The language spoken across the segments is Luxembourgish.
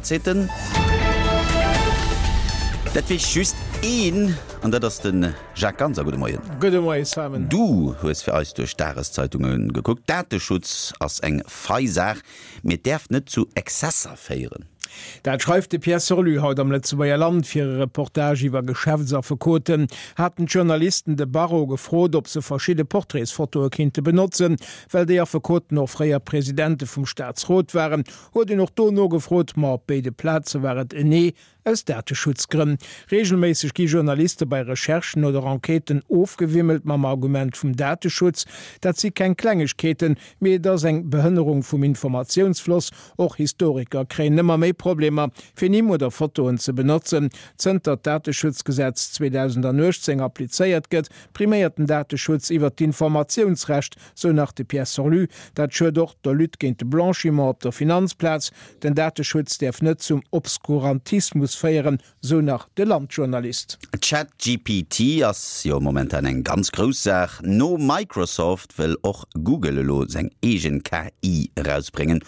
seet en, Dat weess just een, an dat ass de Jacques Ganser. Gudde Moien. Gudde Moien, Simon. Du hues fir eis duerch d'Dageszeitunge gekuckt. Dateschutz ass eng fei Saach, mee et däerf net zu Exzesser féieren. Dat schreift de Pierre Sorlu haut am Lëtzebuerger Land. Fir e Reportage iwwer Geschäftsaffekoten haten d'Journalisten de Barreau gefrot, ob se verschidde Portraitsfotoe kinnte benotzen. Well déi Affekoten och fréier Presidente vum Staatsrot waren, huet een och do nogefrot. Ma op béide Plaze war et en Nee, aus Dateschutzgrënn. Reegelméisseg gi Journaliste bei Recherchen oder Enquêten ofgewimmelt mam Argument vum Dateschutz. Dat si keng Klengegkeeten, mee et ass eng Behënnerung vum Informatiounsfloss. Och Historiker kréien ëmmer méi Problemer, fir Nimm oder Fotoen ze benotzen. Zënter d'Dateschutzgesetz 2018 applizéiert gëtt, priméiert den Dateschutz iwwer d'Informatiounsrecht, sou nach de Pierre Sorlu. Dat schued och der Lutte géint de Blanchiment op der Finanzplaz. Den Dateschutz däerf net zum Obskurantismus féieren, sou nach de Land-Journalist. ChatGPT ass jo momentan eng ganz grouss Saach. No Microsoft wëll och Google elo seng eegen KI erausbréngen.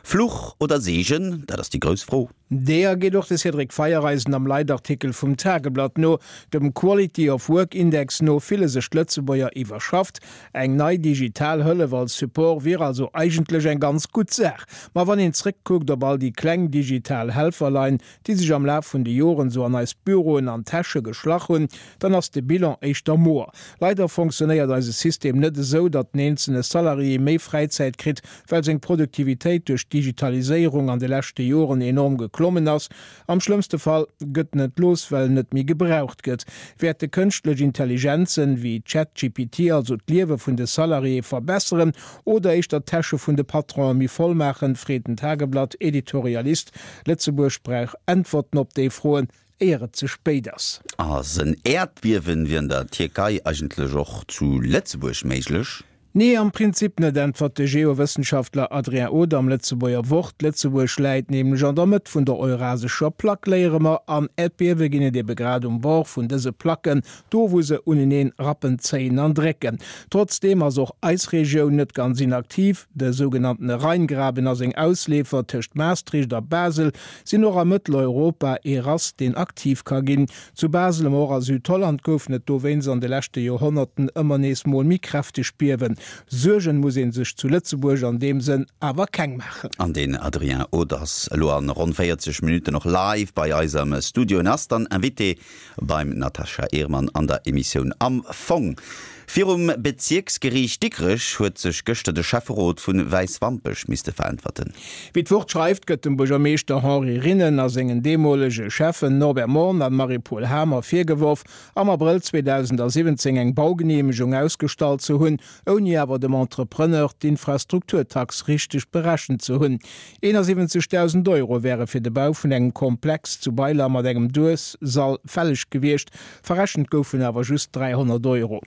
Fluch oder Seegen, dat ass déi grouss Fro. Deeër geet och de Cédric Feiereisen am Leitartikel vum Tageblatt no. Dem Quality of Work Index no fille sech d'Lëtzebuerger iwwerschafft. Eng nei digital Hëllef als Support wier also eigentlech eng ganz gutt Saach. Ma wann een zréckkuckt op all déi kleng digital Helferlein, déi sech am Laf vun de Joren sou an eis Büroen an Täsche geschlach hunn, dann ass de Bilan éischter moer. Leider fonctionnéiert eise System net esou, datt den eenzelne Salarié méi Fräizäit kritt, well seng Produktivitéit duerch d'Digitaliséierung an de leschte Joren enorm geklommen ass. Am schlëmmste Fall gëtt en entlooss, well en net méi gebraucht gëtt. Wäerte kënschtlech Intelligenzen, wéi ChatGPT also d'Liewe vun de Salariéë verbesseren oder éischter d'Täsche vun de Patronen méi voll maachen, freet den Tageblatt-Editorialist. Lëtzebuerg brauch Äntwerten op déi Froen, éier et ze spéit ass. Ass en Äerdbiewen wéi an der Tierkei eigentlech och zu Lëtzebuerg méiglech? Nee, am Prinzip net, äntwert de Geowëssenschaftler Adrien Oder am Lëtzebuerger Wort. Lëtzebuerg läit nämlech an der Mëtt vun der eurasescher Plack, léiere mer, an Äerdbiewe ginn et ebe grad um Bord vun dëse Placken, do wou se uneneen rappen, zéien an drécken. Trotzdeem ass och eis Regioun net ganz inaktiv. De sougenanntene Rheingraben a seng Ausleefer tëscht Maastricht a Basel sinn och a Mëtteleuropa ee Rass, deen aktiv ka ginn. Zu Basel, ma och a Südholland goufen et dowéinst an de leschte Joerhonnerten ëmmer nees mol méi kräfteg Biewen. Suergen muss ee sech zu Lëtzebuerg an deem Sënn awer keng maachen. An den Adrien Oth ass elo an ronn 40 Minutten och live bei eis am Studio en ass dann Invité beim Natascha Ehrmann an der Emissioun Am Fong. Virum Bezierksgeriicht Dikrech huet sech gëschter de Schäfferot vu Wäiswampech misste veräntwerten. Wéi d'Wort schreift, gëtt dem Buergermeeschter Henri Rinnen a sengen deemolege Schäffen Norbert Morn an Marie-Paule Hamer virgeworf, am Abrëll 2017 eng Baugeneemegung ausgestallt ze hunn, ouni awer dem Entrepreneur d'Infrastrukturtax richteg berechent ze hunn. 71.000 Euro wäre fir de Bau vun engem Komplex zu Beiler mat engem Duessall fälleg gewiescht, Verrechent goufen awer just 300 Euro.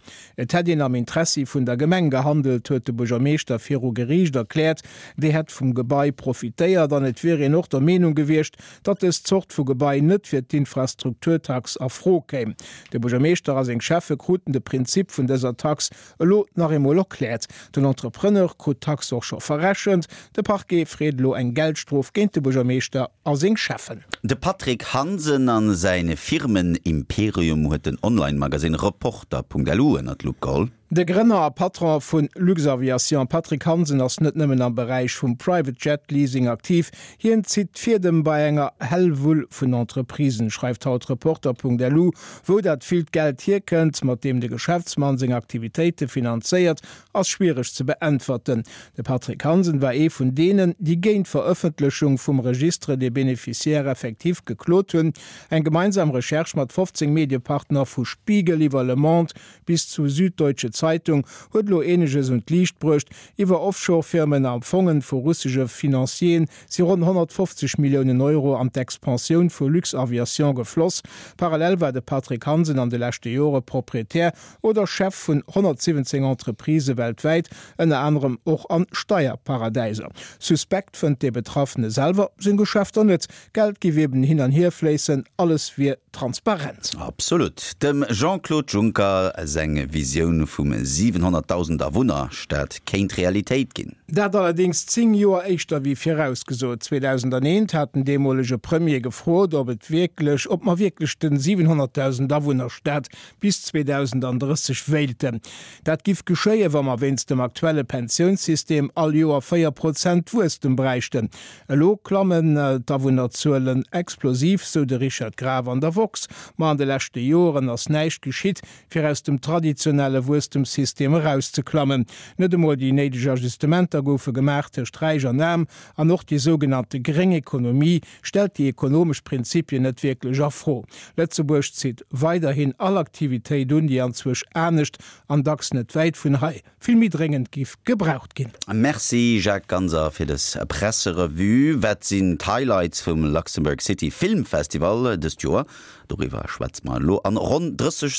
Et hätt een am Interessi vun der Gemeng gehandelt, huet de Buergermeeschter viru Geriicht erkläert. Déi hätt vum Gebai profitéiert an et wier een och der Meenung gewiescht, datt dës Zort vu Gebai net fir d'Infrastrukturtax a Fro kéim. De Buergermeeschter a seng Schäffe kruten de Prinzip vun dëser Tax Elo nach eemol erkläert, Den Entrepreneur krut d'Tax och scho verrechent. De Parquet freet elo eng Geldstrof géint de Buergermeeschter a seng Schäffen. De Patrick Hansen a säin Firmen-Imperium huet den Online-Magasinn Reporter.lu ënner d'Lupp geholl. De Grënner a Patron vu Luxaviation, Patrick Hansen, ass net nëmmen am Beräich vum Private Jet Leasing aktiv, Hien zitt d'Fiedem bei enger Hellwull vun Entreprisen, schreift haut Reporter.lu. Wou dat villt Geld hierkënnt, mat deem de Geschäftsmann seng Aktivitéite finanzéiert, ass schwiereg ze beäntwerten. De Patrick Hansen war ee vun deenen, déi géint d'Verëffentlechung vum Registre des bénéficiaires effectifs geklot hunn. Eng gemeinsam Recherche mat 15 Mediepartner, vu Spiegel iwwer Le Monde bis zu Süddeutsche Zeitung, huet elo eeneges un d'Liicht bruecht, Iwwer Offshore-Firmen a Fongen vu russesche Financieren si ronn 150 Milliounen Euro an d'Expansioun vu Luxaviation gefloss. Parallel war de Patrick Hansen an de leschte Jore Proprietär oder Chef vun 117 Entreprisë weltwäit, ënner anerem och an Steierparadäiser. Suspekt fënnt de Betraffene selwer seng Geschäfter net. Geld géif eben hin an hier fléissen, alles wier. transparent. Absolut. Dem Jean-Claude Juncker seng Visioun vum 700.000 Awunner-Stad kéint Realitéit ginn. Dat allerdéngs 10 Joer éischter wéi virausgesot. 2001 hat den deemolege Premier gefrot, ob et wierklech, ob mer wierklech den 700.000 Awunner-Stad bis 2030 wéilten. Dat giff geschéien, wa mer wéinst dem aktuelle Pensiounssystem all Joer 4 Prozent Wuesstem bräichten. Elo klammen d'Awunnerzuelen explosiv, sou de Richard Graf an der woxx. Ma an de leschte Joren ass näischt geschitt, fir aus dem traditionelle Wuesstemssystem erauszeklammen. Net emol déi néideg Ajustementer goufe gemaach tëscht Räich an Aarm an och déi sougenannte gréng Ekonomie stellt déi ekonomesch Prinzipien net wierklech a Fro. Lëtzebuerg zitt weiderhin all Aktivitéit un, déi anzwousch anescht an dacks net wäit vun hei vill méi dréngend giff gebraucht ginn. Merci Jacques Ganser fir des Presserevue. Wat sinn d'Highlights vum Luxembourg City Film Festival dëst Joer? Doriwwer schwätze mer elo an ronn 30 Sekonnen.